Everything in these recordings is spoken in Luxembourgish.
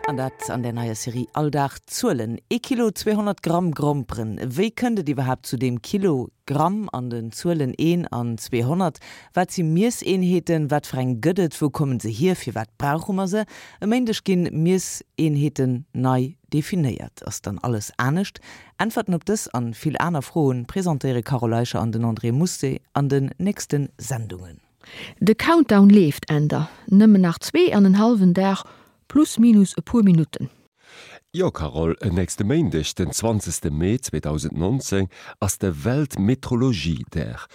An dat an der neier Serie All Dag Zuelen. Ee Kilo 200 Gramm Gromperen. Wéi kënnt et iwwerhaapt zu deem Kilo, Gramm an den Zuelen een an 200? Wat si Miesseenheeten? Wat fir eng gëtt et? Wou kommen se hier? Firwat brauche mer se? E Méindeg ginn Miesseenheeten nei definéiert. Ass dann alles anescht? Äntwerten op dës an vill aner Froen presentéiere Carole Eicher an den André Mousset an den nächsten Sendungen. De Countdown leeft, Änder, nëmmen nach 2 an en hallwen Dag, plus minus e puer Minutten. Jo Carole, nächste Méindeg, den 20 Mee 2019, ass de Weltmetrologiedag.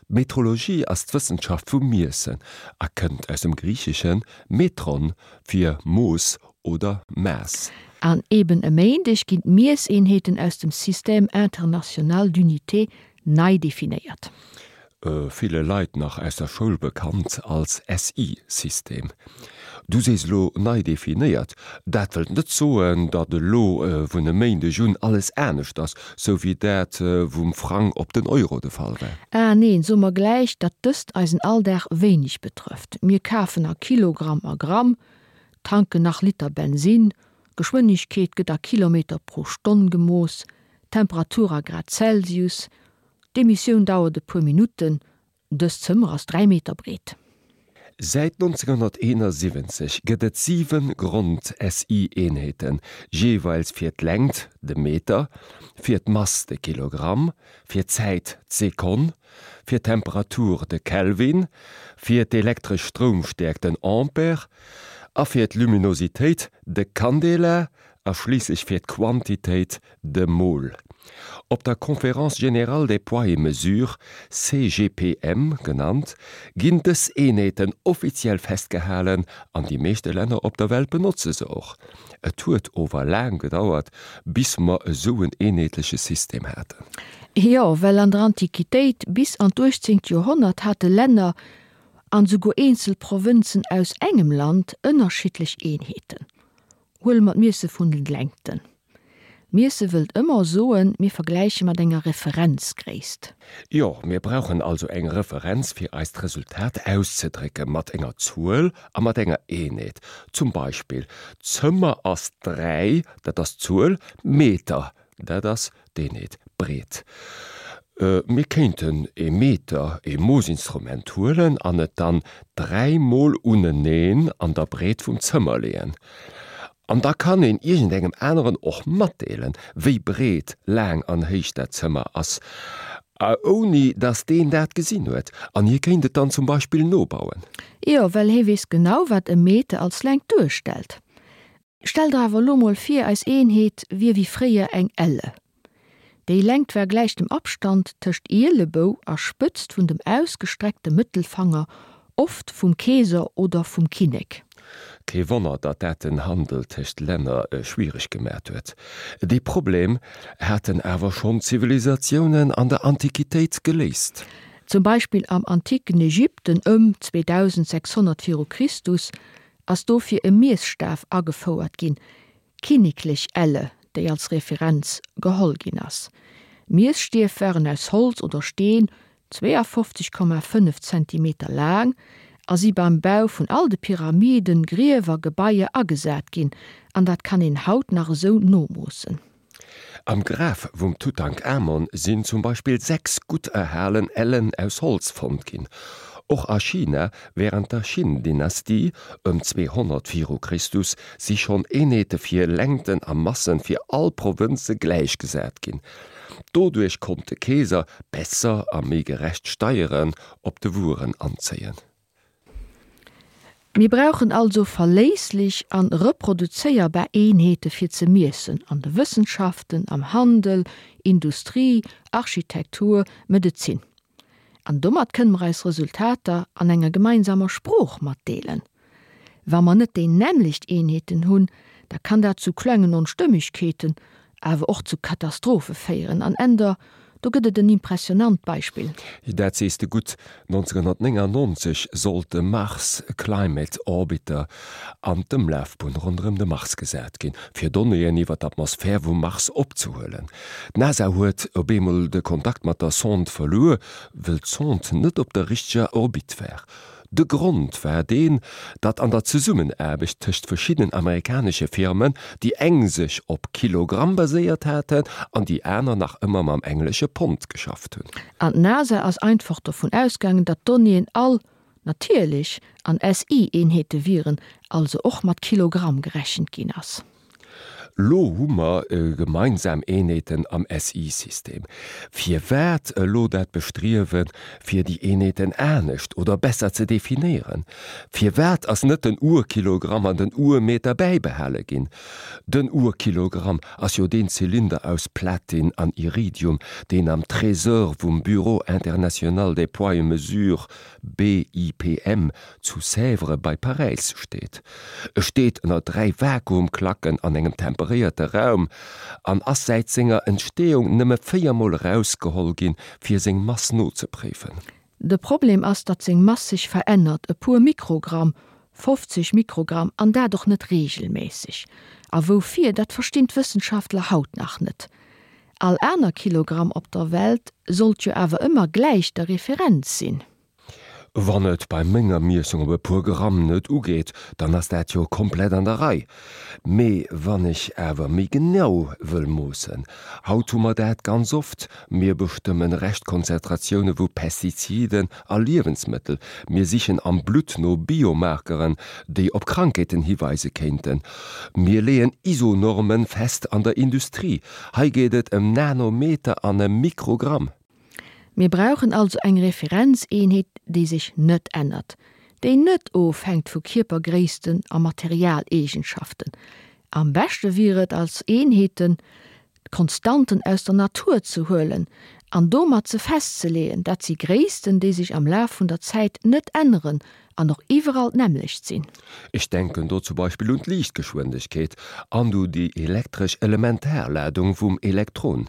D'Metrologie ass d'Wëssenschaft vum Miessen a kënnt aus dem Griicheschen metron fir Mooss oder Maass. An eben e Méindeg ginn d'Miesseenheeten aus dem Système international d'unités nei definéiert. Ville Leit nach aus der Schoul bekannt als SI-System. Du sees elo nei definéiert. Dat wëllt net soen, datt elo vun e Méindeg un alles anescht ass, sou wéi dat vum Frang op den Euro de Fall war. Ah neen, soe mer gläich, datt dëst eisen Alldag wéineg betrëfft. Mir kafen a Kilogramm a Gramm, tanken nach Liter Bensin, Geschwënnegkeet gëtt a Kilometer pro Stonn gemooss, Temperatur a Grad Celsius, D'Emissioun dauert e puer Minutten. Dëst Zëmmer ass 3 Meter breet. Säit 1971 gëtt et 7 Grond-SI-Eenheeten, jeeweils fir d'Längt, de Meter, fir d'Mass, de Kilogramm, fir d'Zäit, d'Sekonn, fir d'Temperatur, de Kelvin, fir d'elektresch Stroumstäerkt, den Ampere, a fir d'Luminositéit, de Candela, a schliisslech fir d'Quantitéit, de Mol. Op der Conférence générale des poids et mesures, CGPM genannt, ginn dës Eenheeten offiziell festgehalen an déi meeschte Länner op der Welt benotze se och. Et huet ower laang gedauert, bis mer esou en eenheetleche System haten. Jo, well an der Antiquitéit bis an d'uechtzéngt Joerhonnert hate Länner an esouguer eenzel Provënzen aus engem Land ënnerschiddlech Eenheeten. Huele mer d'Miesse vun den Längten. Miesse wëllt ëmmer soen, mir vergläiche mat enger Referenzgréisst. Jo, mir brauchen also eng Referenz fir eist Resultat auszedrécke mat enger Zuel a mat enger Eenheet. Zum Beispill, d'Zëmmer ass 3, dat ass d'Zuel, Meter, Dat ass d'Eenheet breet. Mir kéinten ee Meter, ee Moossinstrument huelen an et dann dräimol uneneen an der Breet vum Zëmmer leeën. An da kann een iergendengem aneren och matdeelen, wéi breet, laang an héich dat Zëmmer ass, ouni datt deen dat gesinn huet. An hie kéint et dann zum Beispill nobauen. Jo, well hie weess genau, wat e Meter als Längt duerstellt. Stell der awer elo mol vir, eis Eenheet wier wéi fréier eng Elle. Déi Längt war gläich dem Abstand tëscht Ielebou a Spëtzt vun dem ausgestreckte Mëttelfanger, oft vum Keeser oder vum Kinnek. Kee Wonner, datt dat den Handel tëscht Länner schwiereg gemat huet. Dee Problem haten awer schonn d'Zivilisatiounen an der Antiquitéit geléist. Zum Beispill am antiken Ägypten ëm 2600 viru Christus ass dofir e Miesstaf agefouert ginn, d'kinneklech Elle, déi als Referenz geholl ginn ass. Miesstief waren aus Holz oder Steen, 52,5 Zentimeter laang, a si beim Bau vun all de Pyramiden, Griewer, Gebaier agesat ginn, an dat kann een haut nach esou nomoossen. Am Graf vum Tutankamon sinn zum Beispill 6 gutt erhalen Ellen aus Holz fonnt ginn. Och a China wärend der Qin-Dynastie, ëm 200 viru Christus, si schonn Eenheete fir Längten a Massen fir all Provënze gläichgesat ginn. Doduerch konnt de Keeser besser a méi gerecht Steieren op de Wueren anzéien. Mir brauchen also verléisslech an reproduzéierbar Eenheete fir ze miessen an de Wëssenschaften, am Handel, Industrie, Architektur, Medezin. An domat kënne mer eis Resultater an enger gemeinsamer Sprooch matdeelen. Wa mer net déi nämmlecht Eenheeten hunn, da kann dat zu klengen Onstëmmegkeeten, awer och zu Katastrophe féieren. An Änder, do gëtt et en impressionant Beispill. Dat sees de gutt. 1999 sollt de Mars Climate Orbiter an d'Ëmlafbunn ronderëm de Mars gesat ginn, fir Donnéeën iwwer d'Atmosphär vum Mars opzehuelen. D'NASA huet op eemol de Kontakt mat der Sonde verluer, wëll d'Sonde net op der richteger Orbite war. De Grond war deen, datt an der Zesummenaarbecht tëscht verschiddenen amerikanesche Firmen, déi eng sech op Kilogramm baséiert haten an déi aner nach ëmmer mam englesche Pond geschafft hunn. An d'NASA ass einfach dovun ausgaangen, datt d'Donnéeën all, natierlech, an SI-Eenheete wieren, also och mat Kilogramm gerechent ginn ass. Lo hu mer gemeinsam Eenheeten am SI-System. Firwat elo dat Bestriewen, fir déi Eenheeten anescht oder besser ze definéieren? Firwat ass net den Urkilogramm an den Urmeter bäibehale ginn? Den Urkilogramm ass jo deen Zylinder aus Platin an Iridium, deen am Trésor vum Bureau international des poids et mesures, BIPM, zu Sèvres bei Paräis steet. E steet ënner 3 Vakuumklacken an engem temperéierte Raum an ass säit senger Entsteeung nëmme 4 Mol erausgeholl ginn, fir seng Mass nozepréifen. De Problem ass, datt seng Mass sech verännert, e puer Mikrogramm, 50 Mikrogramm, an dat och net reegelméisseg. A woufir, dat verstinn d'Wëssenschaftler haut nach net. All aner Kilogramm op der Welt sollt jo awer ëmmer gläich der Referenz sinn. Wann et bei menger Miessung op e puer Gramm net ugeet, dann ass dat jo komplett an der Rei. Mee wann ech awer méi genau wëll moossen, haut hu mer dat ganz oft, mir bestëmmen Reschtkonzentratioune vu Pestiziden a Liewensmëttel, mir sichen am Blutt no Biomarkeren, déi op Krankheeten hiweise kéinten, mir leeën ISO-Norme fest an der Industrie, hei geet et ëm Nanometer an ëm Mikrogramm. Mir brauchen also eng Referenzeenheet, déi sech net ännert, déi net ofhänkt vu Kierpergréissten a Materialeegenschaften. Am beschte wier et, als Eenheeten d'Konstanten aus der Natur ze huelen an domat se festzeleeën. Dat si Gréissten, déi sech am Laf vun der Zäit net änneren an och iwwerall d'nämmlecht sinn. Ech denken do zum Beispill un d'Liichtgeschwindegkeet an u déi elektresch Elementarladung vum Elektron.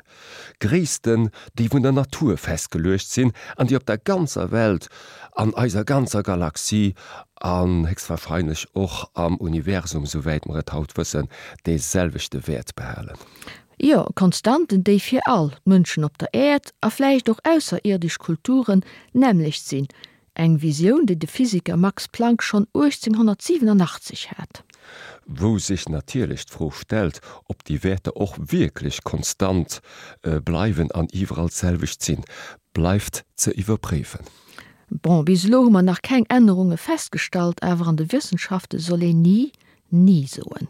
Gréissten, déi vun der Natur festgeluecht sinn an déi op der ganzer Welt, an eiser ganzer Galaxie an héchstwahrscheinlech och am Universum, souwäit mer et haut wëssen, dee selwechte Wäert behalen. Jo, Konstanten, déi fir all d'Mënschen op der Äerd a vläicht och ausserierdesch Kulturen d'nämmlecht sinn, Eng Visioun, déi de Physiker Max Planck schonn 1887 hat. Wou sech natierlech d'Fro stellt, ob déi Wäerter och wierklech konstant bleiwen an iwwerall d'selwecht sinn, bleift ze iwwerpréifen. Bon, bis elo hu mer nach keng Ännerunge festgestallt, awer an de Wëssenschafte soll een ni, ni soen.